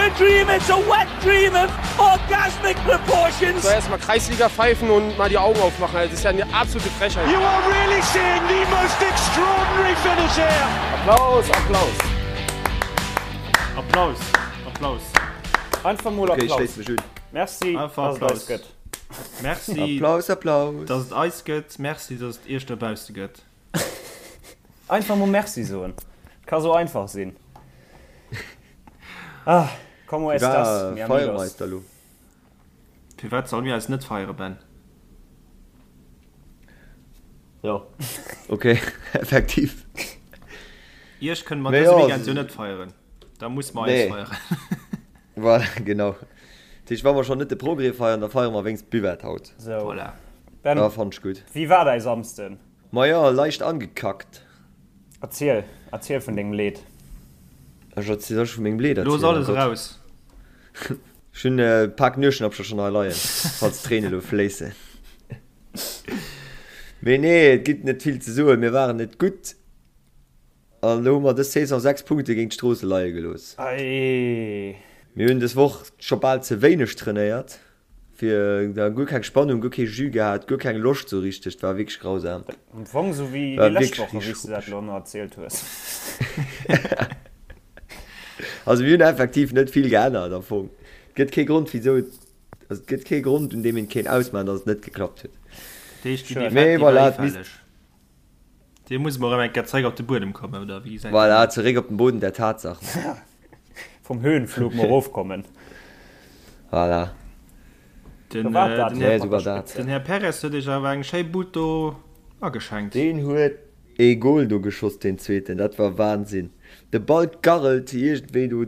a dream, it's a wet dream of orgasmic proportions. So erstmal Kreisliga pfeifen und mal die Augen aufmachen, das ist ja eine absolute Frechheit. You are really seeing the most extraordinary finish here. Applaus, Applaus. Applaus, Applaus. Einfach mol Okay, ich Applaus. schléiss mech un. Merci, Einfach dass et eis Applaus. gëtt. Merci, Applaus, Applaus. dass et eis gëtt. Merci, dass et iech dobausse gëtt. Einfach mol Merci soen. Ka sou einfach sinn. Ah, como estas, mi Firwat feiere mer amigos? eis da lo? Firwat solle mir eis net feiere, Ben? Jo, okay, effektiv. Iech kënne mer Mee dëse jo, Weekend jo net feieren. Da muss mer eis Nee. feieren. Voilà, genau. Dat heescht, wa mer schonn net de Progrès feiern, da feiere mer wéinst d'Buvette haut. Sou. Voilà. Ben, Da fannt ech gutt. wéi war däi Samsden? Majo, leicht angekackt. Erziel, erziel vun dengem Leed. Ech erziel, soll ech vu mengem Leed Looss erzielen? Oh alles Gott. eraus. Ech hunn e Pak Nueschnappcher schonn hei leien, falls d'Tréinen elo fléissen. Mee nee, et gëtt net vill ze soen. Mir waren net gutt an elo hu mer dës Saison 6 Punkte géint d'Stroosse leie gelooss. Ei. Mir hunn dës Woch scho bal ze wéineg trainéiert. Fir da guer keng Spannung, guer kee Jus gehat, guer keng Loscht sou richteg, et war wierklech grausam. Am Fong sou wéi War déi lescht wierklech Woche, wéi richteg s de dat schuppeg. elo ëmmer erzielt hues. Also mir hunn effektiv net vill geännert am Fong. Et gëtt kee Grond wisou et, also et gëtt kee Grond un deem een kéint ausmaachen, datt et net geklappt huet. Dat heescht, déi Schued. Defekt, Mee déi war voilà, et misst. hifälleg. Dir muss mol erëm eng Kéier zeréck op de Buedem kommen, oder wéi gesäit dat Voilà, aus? zeréck op den Boden der Tatsachen. Vum Höhenflug mol erofkommen. Voilà. Den, So war dat den, Nee, Här, sou war dat. den Här Perez huet iech awer eng schéi Bud do ageschenkt. Deen huet ee Goal do geschoss, deen zweeten, dat war Wahnsinn. De Ball garrelt iergendwéi do,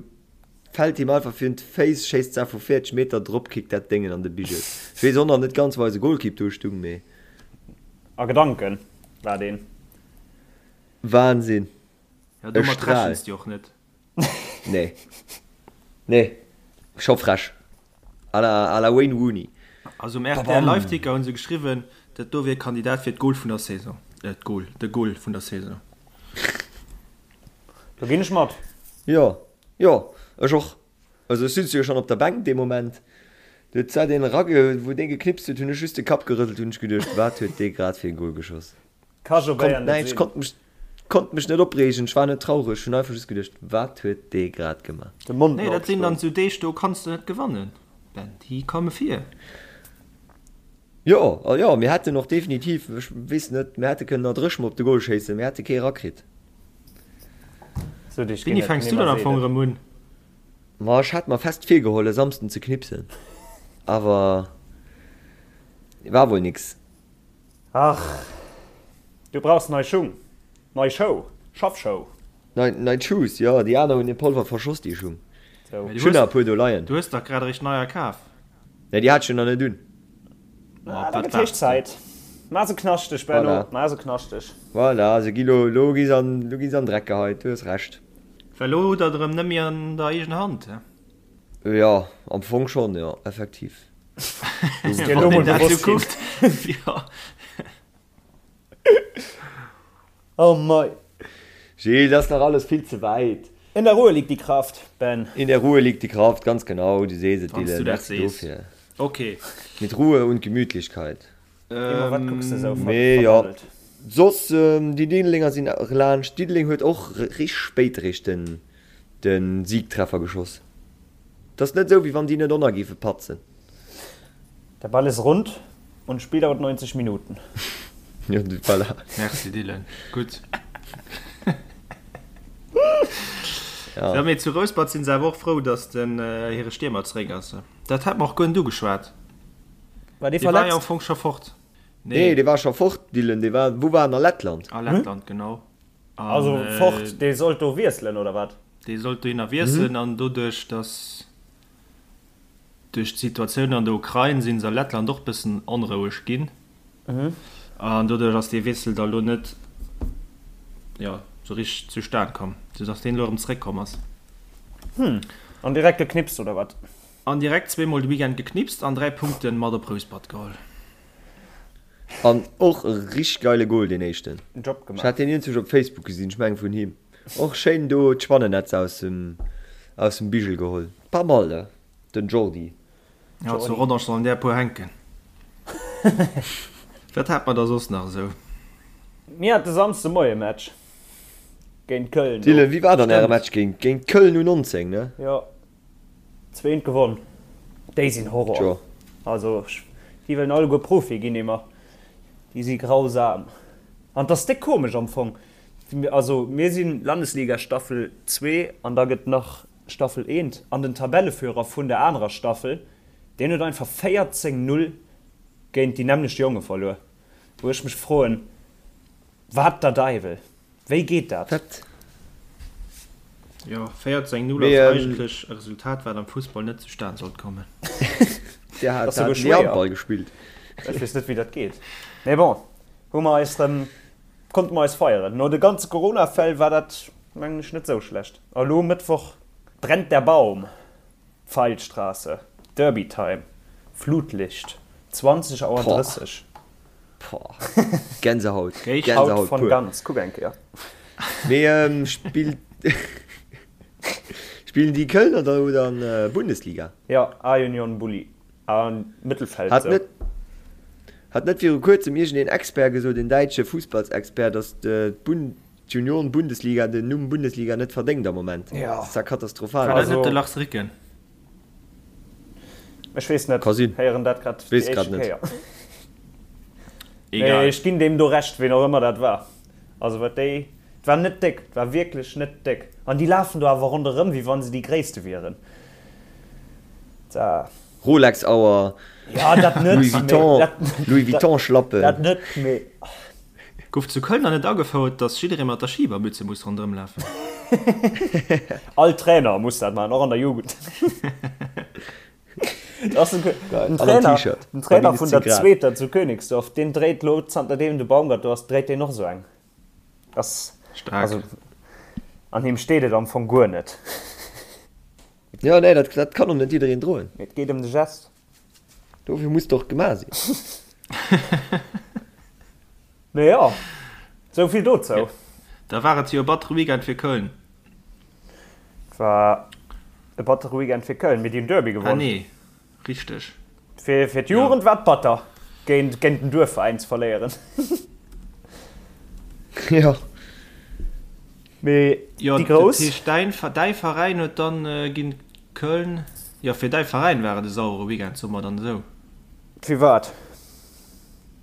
fält him einfach virun d'Féiss, schéisst zwar vu 40 Meter, dropkickt dat Déngen an de Bigel. Ech weess och nach net ganz, wou eise Goalkeep do stung, mee. A Gedanken war deen. Wahnsinn. Ja, E domat Strahl. rechens de och net. Nee. Nee. Scho frech. À la, à la Wayne Rooney. Also um RTL Babam. Liveticker hunn se geschriwwen, dat do wier Kandidat fir d'Goal vun der Saison. Äh, d'Goal, de Goal vun der Saison. Do ginn ech mat. Jo, jo, ech och. Also ech sutz jo schon op der Bänk dee Moment, du huet zwar deen erage wou deen geknipst huet, hunn ech just de Kapp gerëselt, hunn ech geduecht wat huet dee grad fir e Goal geschoss. Ka jo Konnt Bayern net näischt, sinn. konnt mech konnt mech net opreegen, ech war net traureg, hunn einfach just geduecht wat huet dee grad gemaach. De Mond Nee, mer dat sinn dann opgeschloen. sou Deeg, do kanns de net gewannen, Ben, déi komme vir. Jo, a jo, mir hätten och definitiv, ech weess net, mir hätte kënnen nach dréch mol op de Goal schéissen, mir hätte kee erakritt. Sou Deeg ginn Wéini et fänks du dann nimmer am Fong seelen. erëm un? Ma ech hat mer fest virgeholl e Samsden ze knipsen, awer war wuel nix. Ach, du brauchs nei Schung, nei Schou, Schaffschou. Nei, nei Shoes, jo, déi aner hunn den Polver verschoss, déi Schung. Sou. Mä du Ech hunn hues, nach e puer do leien. du hues dach grad eréischt neier kaf. Nee, déi hat ech jo nach net un. Ah, Op da wat gëtt héich waarts de? Zäit. Maach se knaschteg, Benno, Voilà. maach se knaschteg. Voilà, se gi lo, lo gi se an, lo gi se an Dreck geheit, du hues Recht. Well elo hutt der et erëm net méi an der eegener Hand, he? Jo, am Fong schonn, jo, effektiv. Ass dir elo Wann mol een dat sou bewosst ginn. kuckt, jo. Oh mei. Gilles, dat ass nach alles vill ze wäit. In der Ruhe liegt die Kraft, Ben. In der Ruhe liegt die Kraft, ganz genau, du sees et, Wann s Dylan, du dat merci sees. dofir. Ok. Mit Ruhe und Gemütlichkeit. Emma, wat kucks de sou Mee jo, verdaddelt? soss, déi Diddelenger sinn laanscht. Diddeleng huet och richteg spéit eréischt den de Siegtreffer geschoss. Et ass net esou, wéi wann déi net ënner géife patzen. Der Ball ist rund und Spiel dauert 90 Minuten. Jo, voilà. Merci Dylan, gutt. Ja. Jo, mee zu Rouspert sinn se awer och frou, datt den hire Stiermer zeréck ass. Dat hat mer och guer net ugeschwat. War dee Dee war jo am verletzt? Fong scho fort. Nee, Nee. dee war scho fort, Dylan. Dee war, wou war en? A Lettland? A Lettland, genau. An, Also fort, dee sollt do wiesselen, oder wat? Dee sollt dohinner wiesselen an doduerch, datt duerch d'Situatioun an der Ukrain si se a Lettland och bëssen onroueg ginn an doduerch ass dee Wiessel da lo net, jo, sou richteg zustan komm, sou datt deen elo erëm zeréckkomm ass. Hm, an direkt geknipst, oder wat? An direkt zweemol de Weekend geknipst an 3 Punkten mat op Rouspert geholl. An och e richteg geile Goal, deen éischten. Job Ech gemaach. hat deen iergendwou op Facebook gesinn, ech mengen vun him. Och schéin do d'Spannennetz aus dem aus dem Bigel geholl. Pas mal, ne? Den Jordi. Jo, zu Rodange sollen där e puer hänken. Wat hat mer da soss nach esou? Mir hate Samsde Moie Match géint Köln do. Dylan, wéi war dann äre Match géint géint Köln U19, ne? Jo, zweent gewonn. Déi sinn Horror. Tjo. Also déi wëllen alleguer Profi ginn immer. Déi si grausam. An 't ass déck komesch am Fong. Also mir si Landesliga Staffel 2 an da gëtt nach Staffel 1 an den Tabelleführer vun der anerer Staffel, deen huet einfach 14, 0 géint déi nämmlecht Jonge verluer. Wou ech mech froen, Wat der Deiwel? Wéi geet dat? Wat? Jo, 14, 0 ass eigentlech e Resultat, wat am Fussball net zustan sollt kommen. Dir hat ni Handball gespillt. Ech weess net, wéi dat geet. Mee bon, hu mer eis rëm, konnte mer eis feieren. No de ganze Corona-Fäll war dat, mengen ech, net esou schlecht. A lo Mëttwoch brennt der Baum, Pfeilstraße, Derby Time, Flutlicht, 20 Auer 30. Boah, Gänsehaut, Gänsehaut pur. Ganz, kuck eng Kéier. Mee spillt spillen déi Kölner da elo dann Bundesliga? Jo, A-Union Bulli a Mëttelfeld Hat net hat net viru kuerzem iergendeen Expert gesot, een däitsche Fussballsexpert, datt d'Bund d'Junioren-Bundesliga den Numm Bundesliga net verdéngt am Moment? Jo. Dat ass ja katastrophal. War dat net de Lars Ricken? Ech weess net, Ka sinn. héieren dat grad déi Weess grad éischte net. Kéier. Mee Egal. ech ginn deem do Recht, ween och ëmmer dat war. Also wat déi, et war net déck, et war wierklech net déck. An déi lafen do awer ronderëm, wéi wann se déi Gréisste wieren. Da. Rolex-Auer, Ja, dat net, Louis mee Vuitton, dat, Louis dat, Vuitton-Schlappen. dat net, mee. Gouf zu Köln dann net agefouert, dass jidderee mat der Schibermütze muss ronderëm lafen? All Trainer muss dat maachen, och an der Jugend. Das ass den Trainer, den Trainer vun der zweeter zu Königsdorf, deen dréit lo zanter deem de Baumgart do ass, dréit deen och esou eng. Das, Staark. also an him steet et am Fong guer net. Jo, nee, dat, dat kann och net jiddereen droen. Mee et geet ëm de Gest. Dofir muss et och gemaach sinn. Mee jo, sou vill dozou. Da war et jo e battere Weekend fir Köln. Et war e battere Weekend fir Köln, mee déi hunn Derby Ah gewonn. nee, richteg. Fir fir d'Jugend war et batter, géint géint den Duerfveräin ze verléieren. Jo. Mee Jo, déi dat Grouss. heescht däin däi Veräin huet dann géint Köln, jo fir däi Veräin war et e sauere Weekend, soe mer dann esou. Firwat?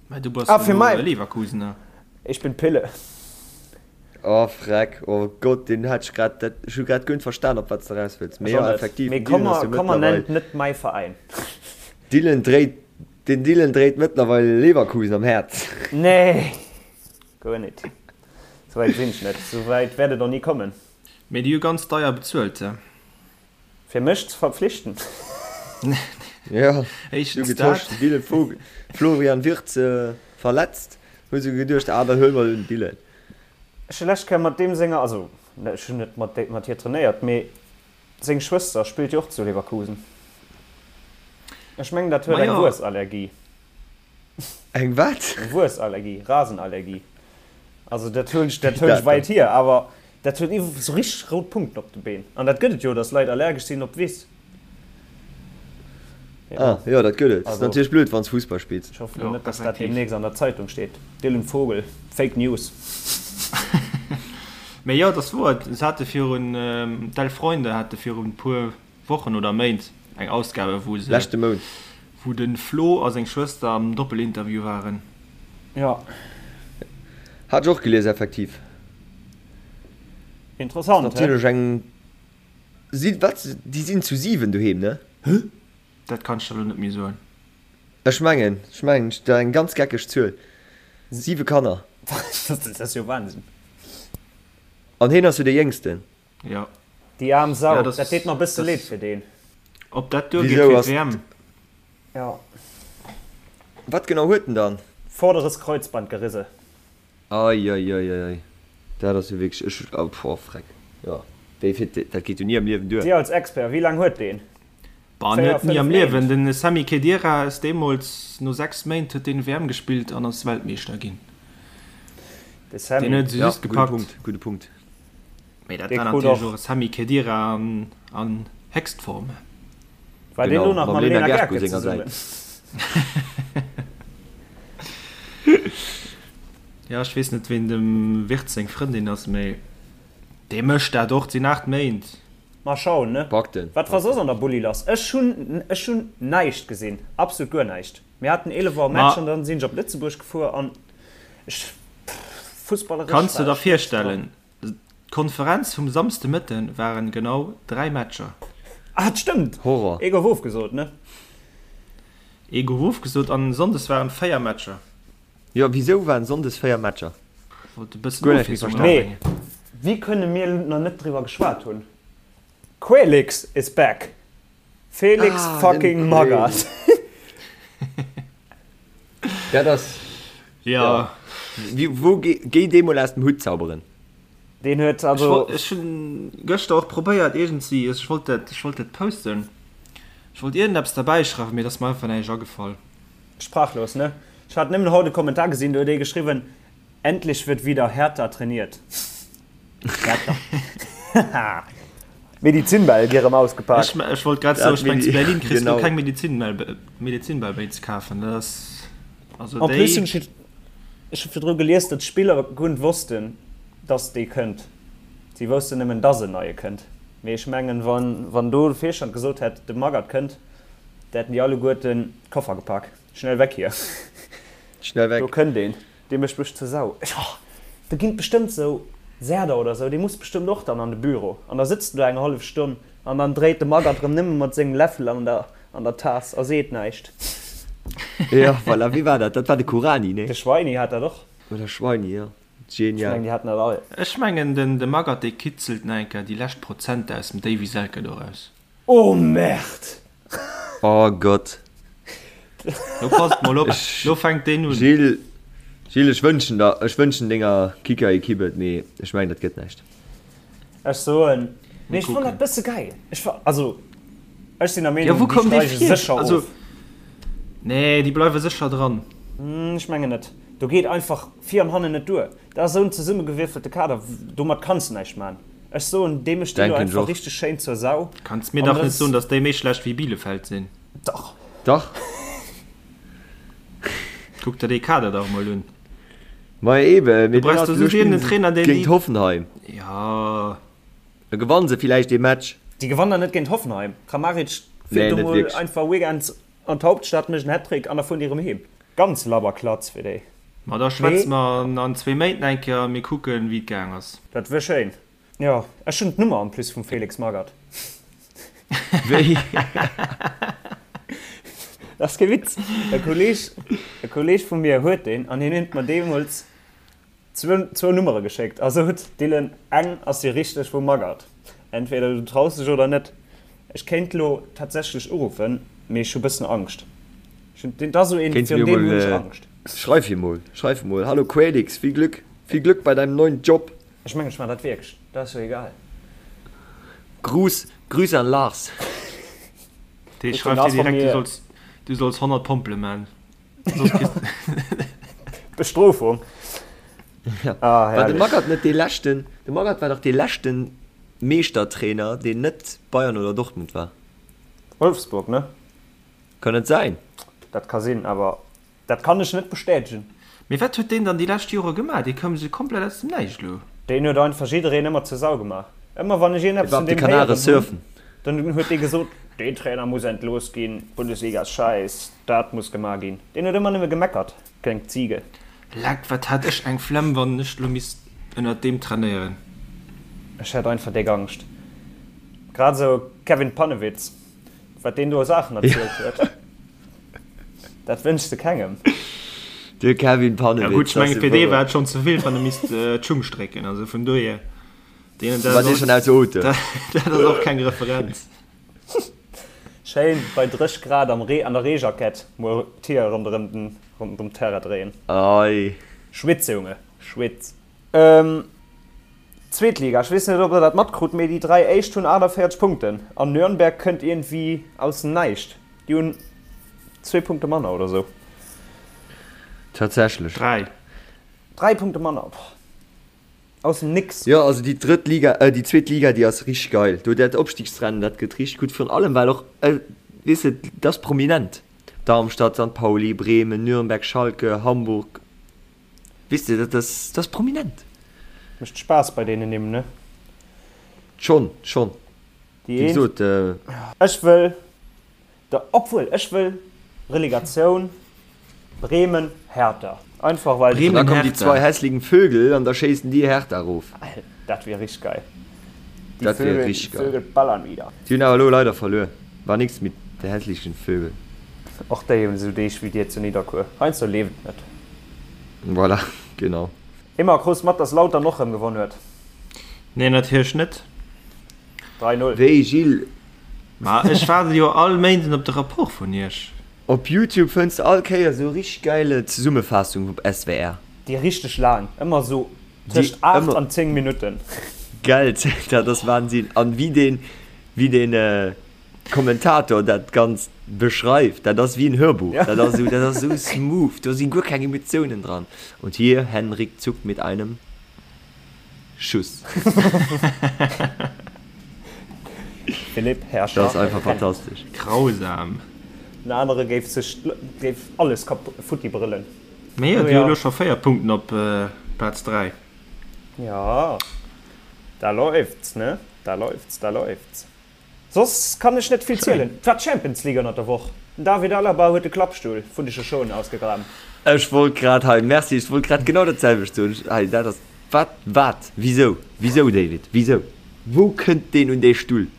Mä du bass Ah, fir elo mäi. Leverkusener. Ich bin Pille. Oh freck, oh Gott, deen hat ech grad, dat, ech hu grad guer net verstan op wat s de raus wëlls. Mee Ech jo, och net. effektiv, Mee den komm Dylan ass mer, jo komm mer mëttlerweil, nennt net mäi Veräin. Dylan dréit, den Dylan dréit mëttlerweil Leverkusen am Häerz. Nee, guer net. Souwäit sinn ech net. Souwäit wäert et och ni kommen. Mee déi hu ganz deier bezuelt, he? Fir mech ze verpflichten. Jo, Éischtens du getosch, dat. den Dylan Vogel, Florian Wirtz verletzt, hu se geduecht, ah da huele mer den Dylan. Ech hu lescht Kéier mat deem senger, also ech hunn net mat mat hir trainéiert, mee seng Schwëster spillt jo och zu Leverkusen. Ech mengen dat huet eng Majo. Wuessallergie. Eng wat? Eng Wuessallergie, Rasenallergie. Also dat huelen ech, dat huelen ech weit hier, awer dat huet iwwer sou richteg rout Punkten op de Been. An dat gëtt et jo, datt Leit allergesch sinn op d'Wiss. Ah jo, dat gëtt et. Ass natierlech blöd, wann s Fussball spills. Ech hoffen net, datt dat deemnächst an der Zeitung steet. Dylan Vogel, Fake News. Mee jo, et ass wouer, se hate virun, d'Elf Freunde hate virun e puer Wochen oder Méint eng Ausgabe wou se, Leschte Mount. wou de Flo a seng Schwëster am Doppelinterview waren. Jo. Hat ech och gelies, effektiv. Interessant, Ass natierlech eng, si, wat, déi sinn zu 7 doheem, ne? Dat kann ech der elo net méi soen. Ech mengen, ech mengen, dat eng ganz geckeg Zuel. 7 Kanner. Dat ass jo Wahnsinn. An heen ass jo dee Jéngsten. Jo. Déi aarm Sau, Ja, das, dat deet mer bësse das, leed fir deen. Ob dat duergeet Wisou fir ass d'WM? Ja. Wat genau huet en dann? Vorderes Kreuzband gerisse. Eieieiei, dat ass jo wierklech, ech, oh boah, freck, jo, wéi fir, dat geet jo ni am Liewen duer. Dir als Expert, wéi laang huet deen? Bah, 4, net ni 5 am Liewen. Méint? Den Sami Khedira ass deemools, no 6 Méint huet deen WM gespillt an ass Weltmeeschter ginn. De Deen Sami. huet se Ja, just gudde gepackt. Punkt, gudde Punkt. Mee dat Dee war krut natierlech och. och e Sami Khedira an Héchstform. War deen Genau, lo nach mam mam Lena Lena Gercke Gercke senger zesummen? Säit. Jo, ech weess net, ween dem Wirtz seng Frëndin ass, mee dee mécht dat och. Et sinn 8 Méint. Mal schauen, ne? Packt en, Wat war packt soss en. an der Bulli lass? Ech hunn, ech hunn näischt gesinn, absolut guer näischt. Mir haten 11 Auer Ma Match an dann sinn ech op Lëtzebuerg gefuer an ech, pff, fussballeresch kanns de war der ech net dran. virstellen, d'Konferenz vum Samsdemëtte waren genau 3 Matcher. Ah, et stëmmt! Horror. Ee gouf ofgesot, ne? Ee gouf ofgesot an sonndes waren 4 Matcher. Jo, wisou waren sonndes 4 Matcher? Wollt e bëssen Guer näischt méi Ofwiesslung verstanen. Mee erabréngen. wéi kënne mir nach net driwwer geschwat hunn? Quaylix is back! Felix Ah, den fucking Magath. Magath! Dat ass, Ja. ja. Wie, wou, géi dee mol aus dem Hutt zauberen. Deen huet Ech also. wollt, ech hunn gëschter och probéiert iergendwéi, ech wollt dat, ech wollt dat posten, ech wollt iergendeppes derbäi schreiwen, mee et ass mer einfach näischt agefall. Sprachlos, ne? Ech hat nëmmen haut e Kommentar gesinn, do huet ee geschriwwen, Endlich wird wieder härter trainiert. Härter. Haha. Medizinbäll gi rëm ausgepak. Ech, ech wollt grad soen, Dat ech meng zu Medi, Berlin kriss du genau. keng Medizinbäll, Medizinbäll méi ze kafen, dat ass, also En plus hunn déi. ech, ech hu virdru gelies, datt d'Spiller guer net wossten, datt dee kënnt. Si woussten nëmmen, datt en neie kënnt. Mee ech mengen, wann, wann do de Virstand gesot hätt, de Magath kënnt, da hätten déi alleguerten d'Koffer gepak. Schnell weg hier. Schnell Do weg. kënnt een. Dee mécht mech zur Sau. Ech, oh, do ginn et bestëmmt sou Serder oder sou, dee muss bestëmmt och dann an de Büro. An da sëtzt en do eng hallef Stonn an dann dréit de Magath rëm nëmme mat sengem Läffel an der, an der Taass a seet näischt. Jo, voilà, wee war dat? Dat war de Kuranyi, nee? De Schweini hat dat och. Oder Schweini, jo. Ech Genial. mengen, déi haten dat all. Ech mengen, den de Magath, dee kitzelt nach eng Kéier déi lescht Prozenter aus dem Davy Selke do raus. Oh Merde! Oh Gott. Lo passt mol op, Ech, lo fänkt deen un. Gilles, Gilles, ech wënschen der, ech wënschen denger Kicker-Equipe et, mee ech mengen, dat gëtt näischt. Ech soen, Mir mee ech fannen dat kucken. bësse geil. Ech fa, also ech sinn der Jo, Meenung, wou déi koum dee steige vir? sécher Also, of. nee, déi bleiwe sécher dran. Ech mengen net. Do geet einfach vir an hannen net duer. Dat ass esou en zesummegewierfelte Kader, domat kanns de näischt man. Ech soen, dee mécht déi lo Denken ech einfach och. richteg schéin zur Sau. Kanns mir An dach dat net ass. soen, dass déi méi schlecht wéi Bielefeld sinn. Dach. Dach. Kuck der dee Kader dach mol un. Ma eben, Du mee brauchs dann do elo just spillen iergendeen se Trainer, deen géint déi. Hoffenheim. Jo. Da gewannen se villäicht dee Match. Déi gewannen der net géint Hoffenheim. Kramaric Nee, fiert do net mol wierklech. einfach weekends an d'Hauptstadt, mécht en Hattrick an da fueren déi erëm heem. Ganz labber Klatz fir déi. Ma da schwätze Mee. mer an zwee Méint eng Kéier a mir kucken, wéi et gaang ass. Dat wier schéin. Jo, ech hunn d'Nummer en plus vum Felix Magath. Wéi? Dat ass kee Witz. E Kolleeg, e Kolleeg vu mir huet deen an hien huet mer deemools zwou, zwou Nummere geschéckt a sot, Dylan, eng ass déi richteg vum Magath. Entweder du traus dech oder net. Ech kéint lo tatsächlech uruffen, mee ech hu bëssen Angscht. Ech hunn, dat ass esou een, Kéints virun mir deem mol, hunn ech Angscht. Schreif him mol, schreif him mol, Hallo Quaylix, viel Glück, viel Glück bei deinem neuen Job. Ech mengen ech man dat wierklech, dat ass jo egal. Gruß, Grüße an Lars. Dee Huet den schreift dir Lars von direkt, du mir. solls, du solls 100 Pompele man. Soss kriss Bestrofung. Ja. Ah, War de herrlech. Magath net dee leschten, de Magath war dach dee leschten Meeschtertrainer, deen net Bayern oder Dortmund war. Wolfsburg, ne? Kann et säin? Dat ka sinn, awer Dat kann ech net bestätegen. Mee wat huet deen dann déi lescht Jore gemaach? Dee koum esou komplett aus dem Näischt elo. Deen huet einfach jiddereen ëmmer zur Sau gemaach. Ëmmer wann ech Dee iergendeppes war vun op de deem Kanare héieren hunn, surfen. dann huet dee gesot, deen Trainer muss entlooss ginn, d'Bundesliga ass schäiss, dat muss gemaach ginn. Deen huet ëmmer nëmme gemeckert, kleng Ziege. Leck, wat hätt ech eng Flemm, wann ech elo misst ënnert deem trainéieren. Ech hätt einfach déck Angscht. Grad esou Kevin Pannewitz, wat deen do u Saachen erzielt huet. Dat wënschs de kengem. De Kevin Ja Pannewitz, gutt, ech dat menge ass fir dee wouer. war et schonn ze vill, wann e misst d'Schung strécken. Also vun dohier, deen, dat War ass dee och, schonn aus Ote? dat, dat ass och keng Referenz. Schéin bei 30 Grad am Ree an der Reejackett mol d'Tier ronderëm den ronderëm d'Terrain dréien. Ei. Schwitz Junge, schwitz. Zweet Liga, ech weess net ob der dat matkrut, mee déi 3 éischt hunn 48 Punkten an Nürnberg kënnt iergendwéi aus dem Näischt. Déi hunn zwee Punkte manner oder sou. Tatsächlech. 3. 3 Punkte manner, boah. Aus dem Nix. Jo, also déi drëtt Liga, äh déi zweet Liga, déi ass richteg geil. Do dat Opstigsrennen, dat gëtt richteg gutt. Virun allem well och. Weess de, dat ass prominent. Darmstadt, St. Pauli, Bremen, Nürnberg, Schalke, Hamburg. Weess de, dat ass, dat ass prominent. Mécht Spaass bei deenen Nimm, ne? Schonn, schonn. Déi Wéi gesot. Ech wëll der, obwuel, ech wëll Relegatioun Bremen, Hertha. Einfach well. Bremen, Hertha. Da kommen déi zwei hässlichen Vögel an da schéissen déi Hertha erof. Dat wier richteg geil. Die Dat wier richteg geil. Vögel ballern wieder. Si hunn awer elo leider verluer. War nix mit de hässlichen Vögel. Och déi hunn esou Deeg wéi dir zu Nidderkuer. Heiansdo leeft et net. Voilà, genau. Emma, krus mat dass Lautern och rem gewonn huet? Nee, natierlech net. 3, 0. Wéi, Gilles? Ma ech waarde jo all Méinden op de Rapport vun iech. Op Youtube fënns de all Kéier sou richteg geile Zesummefaassung vum SWR. Déi richteg laang, ëmmer sou tëscht 8 an 10 Minutten. Gell, dat ass Wahnsinn. An wéi deen, wéi deen Kommentator dat Ganzt beschreift, dat ass wéi en Hörbuch. Dat ass sou, dat ass sou smooth, do si guer keng Emotiounen dran. Und hier Henrik Zuck mit einem. Schuss. Philippe Herrscher. Dat ass einfach fantastesch. Grausam. Den anere géif sech géif alles kap futti brëllen. Mee jo, déi hu lo scho 4 Punkten op Plaz 3. Jo, da läuft's, ne? Da läuft's, da läuft's. Soss kann ech net vill zielen. Et war d'Champions League ënnert der Woch. Den David Alaba huet de Klappstull vun de Shoshonen ausgegraben. Ech wollt grad hei, merci, ech wollt grad genau dat selwecht soen. Hei, dat ass, wat, wat, wisou, wisou David, wisou? Wou kënnt deen un dee Stull?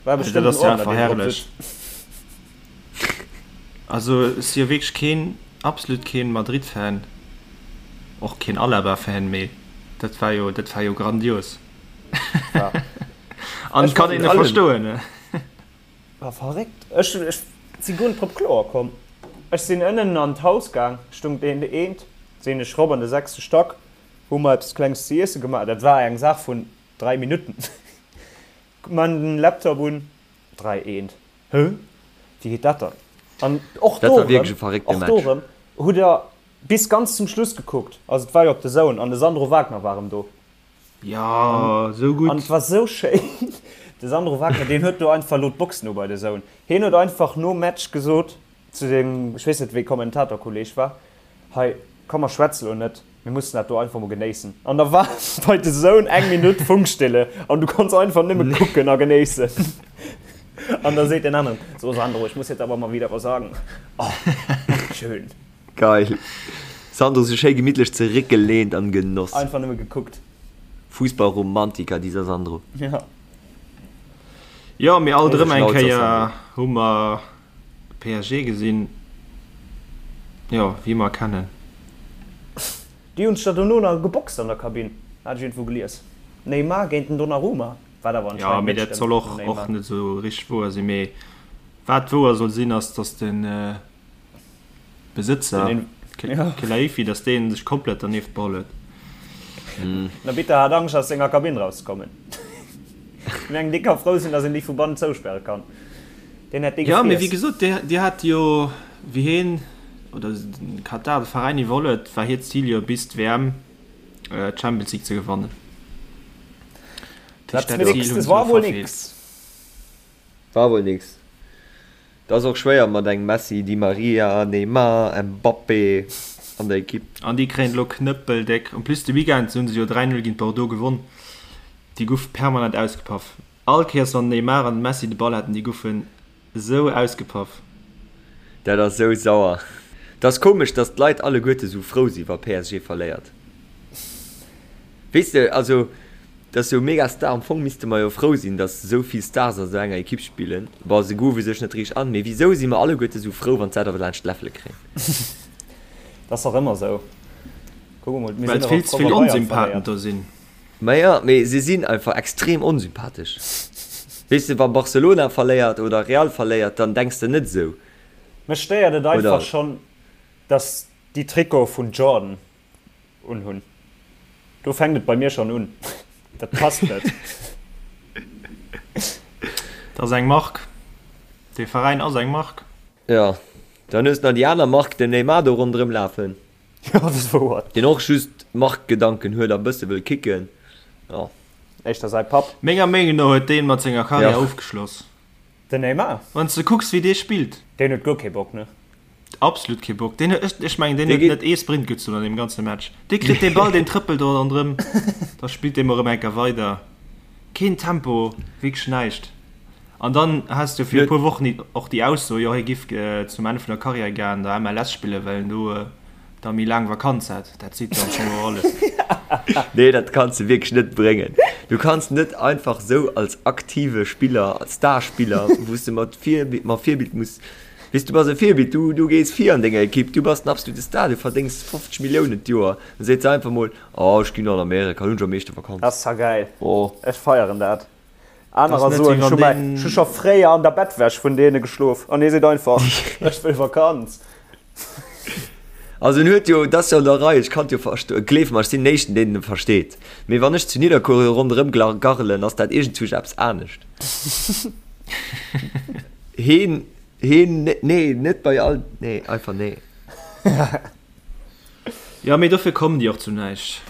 War Dat bestëmmt en ass ja Ordner, deen drop verherrlech. sëtzt. Also ech si jo wierklech keen, absolut keen Madrid-Fan, och keen Alaba-Fan, mee dat war jo, dat war jo grandios. Ja. An Ech kann een war verstoen. War verréckt. Ech, ech si guer net drop kloer komm. Ech sinn ënnen an d'Haus gaang, stung deen eent, sinn ech rop an de sechste Stack, hu mer eppes Klenges ze iesse gemaach. Dat war eng Saach vun 3 Minutten. Man den Laptop un, 3 eent. Hë? Wéi geet dat dann? An och Dat do war wierklech erëm, e verréckte och do Match. erëm hutt der bis ganz zum Schluss gekuckt. Also et war jo op DAZN an de Sandro Wagner war erëm do. Jo, sou gutt. An et war sou schéin, de Sandro Wagner, deen huet do einfach elo d'Box no bei DAZN. Hien huet einfach nom Match gesot zu sengem, ech weess net wéi Kommentatorkolleeg war, Hei, komm mer schwätze lo net, mir mussen dat do einfach mol genéissen. An da war bei DAZN eng Minutt Funkstille an du konns einfach nëmme kucken a genéissen. An da seet deen aneren, So Sandro, ich muss jetzt aber mal wieder was sagen. Oh, schön. Geil. Sandro sech schéi gemittlech zeréckgelehnt an genoss. Einfach nëmme gekuckt. Fussballromantiker dieser Sandro. Ja. Jo, mee alt Grouse erëm eng Schnauz ass Kéier Sandro. hu mer PSG gesinn, jo, wéi mer kennen. Déi hunn sech da dono nach geboxt an der Kabinn, hat ech iergendwou gelies. Neymar géint den Donnarumma, wat awer Jo, anscheinend mee net dat stëmmt soll vum och Neymar. och net esou richteg wouer sinn. Mee wat wouer soll sinn, ass, dass den Besëtzer Khelaifi, datt dee sech komplett dernieft beholl huet. Den Arbitter hat Angscht aus senger Kabinn rauszekommen. Ech mengen dee ka frou sinn, datt een déi vu bannen zouspäre kann. Deen hätt dee Jo, mee wéi gefriess. gesot, déi hat jo, wéi hien oder de Katar de Veräin iwwerholl huet, war hiert Zil jo bis d'WM d'Champions League ze gewannen. Dat Zil hunn se elo verfeelt. War wuel nix. Et ass och schwéier mat engem Messi, Di Maria, Neymar, Mbappé an der Ekipp. An déi kréien et elo knëppeldéck. En plus de Weekend hunn se jo 3, 0 géint Bordeaux gewonn. Déi goufe permanent ausgepaff. All Kéiers wann den Neymar an den Messi de Ball haten, déi goufen esou ausgepaff. Dat ass esou sauer. Et ass komesch, dass d'Leit alleguerte sou frou si wa PSG verléiert. Weess de, also dat ass jo mega Star. Am Fong misste mer jo frou sinn, dass esou vill Stars a sou enger Ekipp spillen. Bon, se groove sech net richteg an, mee wisou si mer alleguerte sou frou, wann s'at awer laanscht d'Läffele kréien? Dat ass dach ëmmer sou. Kuck emol, mir Well sinn et och vill ze frou, vill wa Bayern Onsympathen verléiert. do sinn. Maja, mee se sinn einfach extrem onsympathesch. Weess de, wa Barcelona verléiert oder Real verléiert, dann denks de net esou. Mech stéiert et einfach Oder? schonn, dass déi Trikote vun Jordan unhunn. Do fänkt et bei mir schon un. Dat passt net. Dat ass eng Mark. Dee Veräin ass eng Mark. Jo, dann hues de nach déi aner Mark, den Neymar do ronderëm lafen. Jo, dat ass wouer. Deen och just Markgedanken huet a bësse wëll kicken. Jo. Éischter säi Papp. Menger Meenung no huet deen mat senger Karriär Jo. ofgeschloss. Den Neymar? Wann s de kucks, wéi dee spillt. Deen huet guer kee Bock, ne? Absolut kee Bock. Deen huet, ech mengen, deen huet net ee Sprint gezunn an deem ganze Match. Dee kritt dee Ball, deen trëppelt do ronderëm, da spillt dee mol erëm eng Kéier weider. Keen Tempo, wierklech näischt. An dann has de fir e puer Wochen och déi Ausso, jo hie giff zum Enn vun der Karriär gär an der MLS spillen, well en do da méi laang Vakanz hätt. Dat seet jo am Fong och alles. Nee, dat kanns de wierklech net bréngen. Du kanns net einfach sou als aktive Spiller, als Starspiller, wou s de mat Virbild, mat Virbild muss, weess, du bass e Virbild, du, du gees vir an denger Ekipp, du bass den absolute Star, du verdéngs 50 Milliounen d'Joer, dann seet se einfach mol, oh ech ginn an Amerika, do hunn ech am meeschte Vakanz. Dat ass zwar gäil, Oh. ech feieren dat. Anerer soen, ech hu mäi, ech hu scho fréier an der Bettwäsch vun deene geschlof an hie seet einfach, ech wëll Vakanz. Also en huet jo, et ass jo an der Rei, ech kann et jo verstoen, gleef mer, ech sinn den éischten deen en versteet, mee wann ech zu Nidderkuer ronderëm garrelen, ass dat iergendzwousch eppes anescht. Heen, heen, nee, net bei all, nee, einfach nee. Jo, mee dofir kommen déi och zu näischt.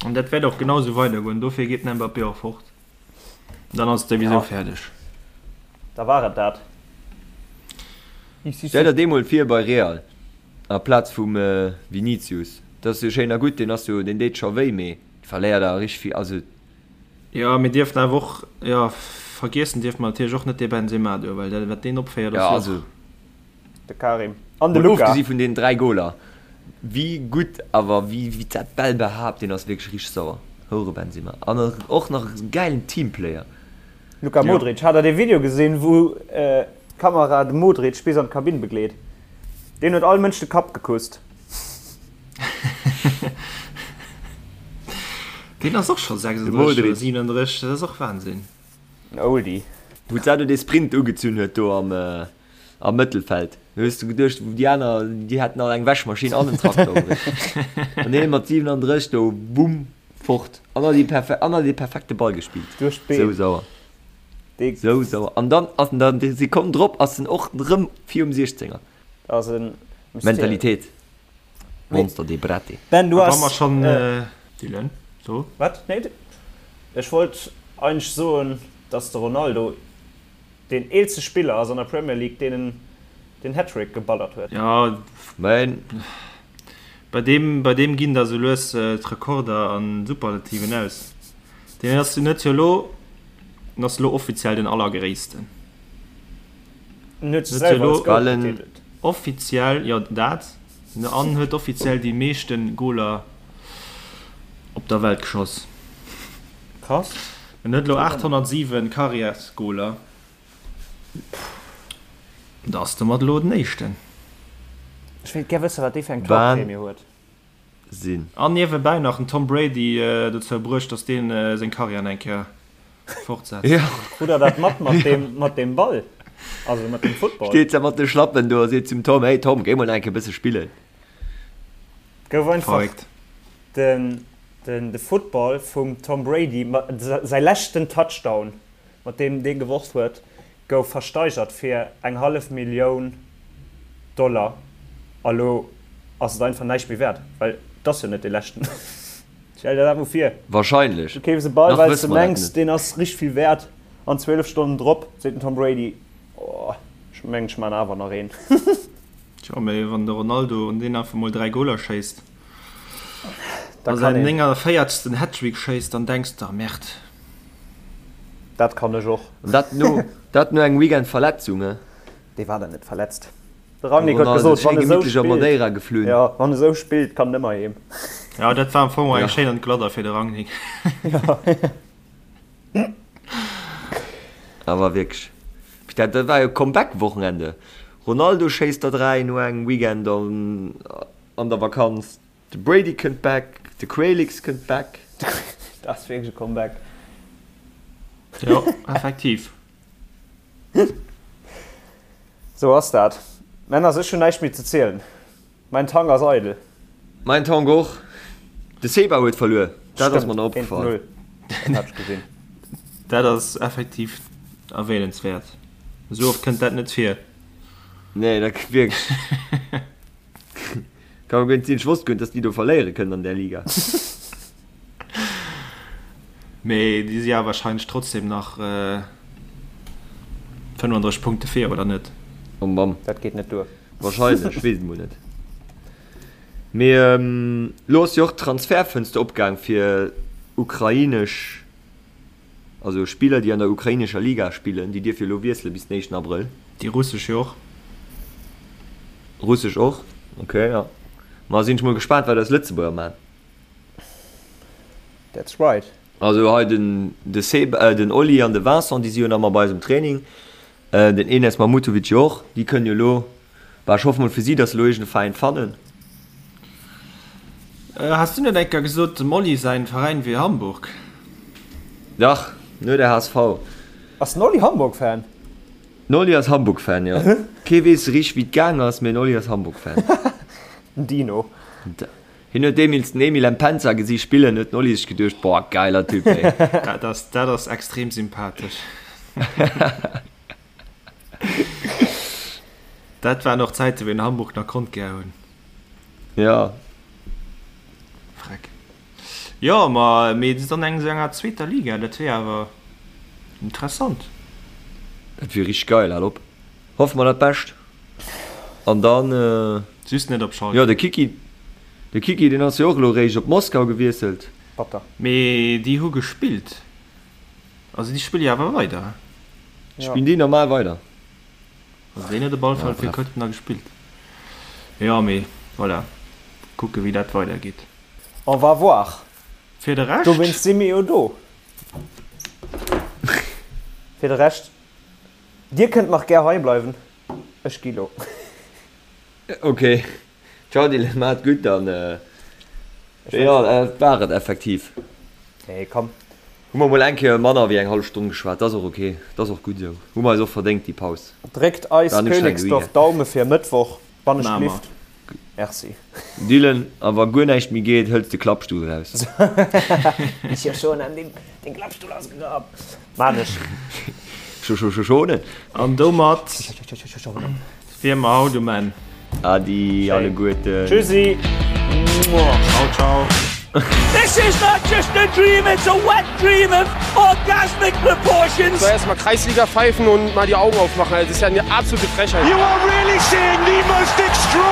An dat wäert och genau esou weidergoen. Dofir geet den Mbappé och fort. Dann ass et souwisou fäerdeg. Da war et dat. Stell der dee mol vir bei Real aplaz vum Vinicius. Dat ass jo schéin a gutt, deen ass jo, deen deet scho wéi, mee verléiert awer richteg vill. Also. Jo, mir dierfen awer och, jo, vergiessen dierfe mer natierlech och net dee Benzema do, well dat wat deen opféiert ass jo och. De Karim an de Luca. Mol ofgesi vun deenen 3 Goler, wéi gutt awer wéi dat Bäll behaapt, deen ass wierklech richteg sauer. Houre Benzema an och nach e gäilen Teamplayer. Luka Modric, hat der dee Video gesinn wou d'Kamera de Modric bis an d'Kabinn begleet? Deen huet all Mënsch de Kapp gekusst. Deen ass och scho 36 oder 37, dat ass och Wahnsinn. En Oldie. Wou d'Sado dee Sprint ugezunn huet do am Am Mëttelfeld. Do hues du geduecht, déi aner, déi hätten all eng Wäschmaschinn an en Trakter um Réck. An hien mat 37 do, bumm, fort. An hat déi, an hat dee perfekte Ball gespillt. Duerch d'Been. Sou sauer. Sou sauer. An dann ass en dann déi Sekonn drop ass en och rëm virum Siechzenger. Dat ass e Mystère. Mentalitéit. Monster dee Brett. Ben, du A wa has. mer schonn, Dylan, so. Wat? Nee, ech wollt eigentlech soen, dass de Ronaldo Deen eelste Spiller ass an der Premier League deen den Hattrick geballert huet. Jo, Mä bei deem, bei deem ginn da sou lues d'Rekorder an Superlativen aus. Deen ass jo net jo elo, en ass elo offiziell den Allergréissten. En huet sech selwer als Goat betitelt. Offiziell, jo dat, an huet offiziell déi meeschten Goler op der Welt geschoss. Krass. En huet elo 807 Karriärsgoler. Da ass domat elo den éischten. Ech wéilt gär wëssen, wat dee fir eng Torprämie huet. Wahnsinn. An niewebäi nach den Tom Brady dozou bruecht, dass deen seng Karriär nach eng Kéier fortsetzt. Jo. Krut der dat mat mat deem mat deem Ball, also mat deem Football? Steet se mat de Schlappen do a seet zum Tom, Hey Tom, géi mol nach eng Kéier e bësse spillen. Gouf einfach Verréckt. den Den de Football vum Tom Brady, säi leschten Touchdown, mat deem dee geworf huet, gouf versteigert fir eng hallef Millioun Dollar. A lo ass et einfach näischt méi wäert, well et ass jo net dee leschten. Stell der dat mol vir, Wahrscheinlech. du keefs e Ball, Nach well s wësse de mer dat mengs, net. deen ass richteg vill wäert, an 12 Stonnen drop seet den Tom Brady, Oh, ech mengen, ech man awer nach een. Tjo, mee wann de Ronaldo un deen einfach mol 3 Goler schéisst a säin 49. Hattrick schéisst, dann denks de, Merde. Dat kann ech och. An dat no, dat no engem Weekend Verletzung, he? Dee war dann net verletzt. De Rangnick huet gesot, wann e sou spillt, jo, wann e sou spillt, kann en ëmmer heem. Jo, dat war am Fong och eng schéin Entgladder fir de Rangnick. Jo. Awer wierklech, dat war jo Comeback-Wochenende. Ronaldo schéisst der 3 no engem Weekend an der Vakanz, de Brady kënnt back, de Quaylix kënnt back. Dat ass wierklech e Comeback. Jo, effektiv. Sou ass dat. Männers, ech hunn näischt méi ze zielen. Mäin Tank ass eidel. Mäin Tank och. De Seba huet verluer, dat ass mer nach Stëmmt, 1 opgefall. 0, dat hat ech gesinn. Dat ass effektiv erwähnenswäert. Esou oft kënnt dat net vir. Nee, dat wierklech. Kann guer net sinn. Ech wosst guer net, dass déi do verléiere kënnen an där Liga. Mee déi si awer wahrscheinlech trotzdem nach. 35 Punkte vir, oder net? Oh Mamm. Dat geet net duer. Wahrscheinlech, ech weess et mol net. Mee elo ass jo och d'Transfertfënster opgaang fir ukrainesch, also Spiller déi an der ukrainescher Liga spillen, déi dierfe jo elo wiessele bis den éischten Abrëll. Déi russesch jo och. Russesch och, ok, jo. Ma sinn ech mol gespaant wat eis Lëtzebuerger man. That's right. Also hei den de Seb, den Oli an de Vincent, déi si jo nach ëmmer bei eis um Training. Den Enes Mahmutovic jo och. Déi kënnen jo elo, bah ech hoffe mol fir si, datt se elo iergend e Veräin fannen. Has du net eng Kéier gesot, dem Oli säin Veräin wier Hamburg? Dach, nur der HSV. Ass den Oli Hamburg-Fan? Den Oli ass Hamburg-Fan, jo. Kee weess richteg wéi et gaang ass, mee den Oli ass Hamburg-Fan. Den Dino. Hien huet deemils den Emile Mpenza gesi spillen, huet den Oli sech geduecht, Boah, geiler Typ, ey. Dat ass, dat ass extrem sympathesch. Dat waren och Zäiten, wéi een Hamburg nach konnt gär hunn. Ja. Freck. Jo, ma mee dann eng esou enger zweeter Liga, dat wier awer interessant. Dat wier richteg geil, hal op. Hoffe mer dat Bescht. An dann. Just net op Schalke. Jo, de Kiki, de Kiki, deen ass jo och elo réischt op Moskau gewiesselt. Batter. Mee déi hu gespillt. Also déi spille jo awer weider. Spillen déi normal weider? Also deen huet op alle Fall fir Köln da gespillt. Jo, mee voilà, kucke wéi dat weidergeet. On va voir. Fir de Rescht. Dowéinst si mir jo do. Fir de Rescht, dir kënnt nach gär hei bleiwen, ech gi lo. Ok, ciao Dylan, maach et gutt an jo, dat war et effektiv. Nee, komm. Hu mer mol eng Kéier manner wéi eng hallef Stonn geschwat, dat ass och ok, dat ass och gutt esou. Hu mer eis och verdéngt déi Paus. Dréckt eis Königsdorf Daume fir Mëttwoch, wann ech glift. Merci. Dylan, a wa guer näischt méi geet, hëls de Klappstull raus. Ech jo schon an den Klappstull ausgegraben. Maan ech. Schonen. An domat wier mer haut um Enn. Adi alleguerten. Tschüssi. Ciao ciao. This is not just a dream, it's a wet dream of orgasmic proportions. So, erstmal Kreisliga pfeifen und mal die Augen aufmachen. Das ist ja eine absolute Frechheit. You are really seeing the most extraordinary.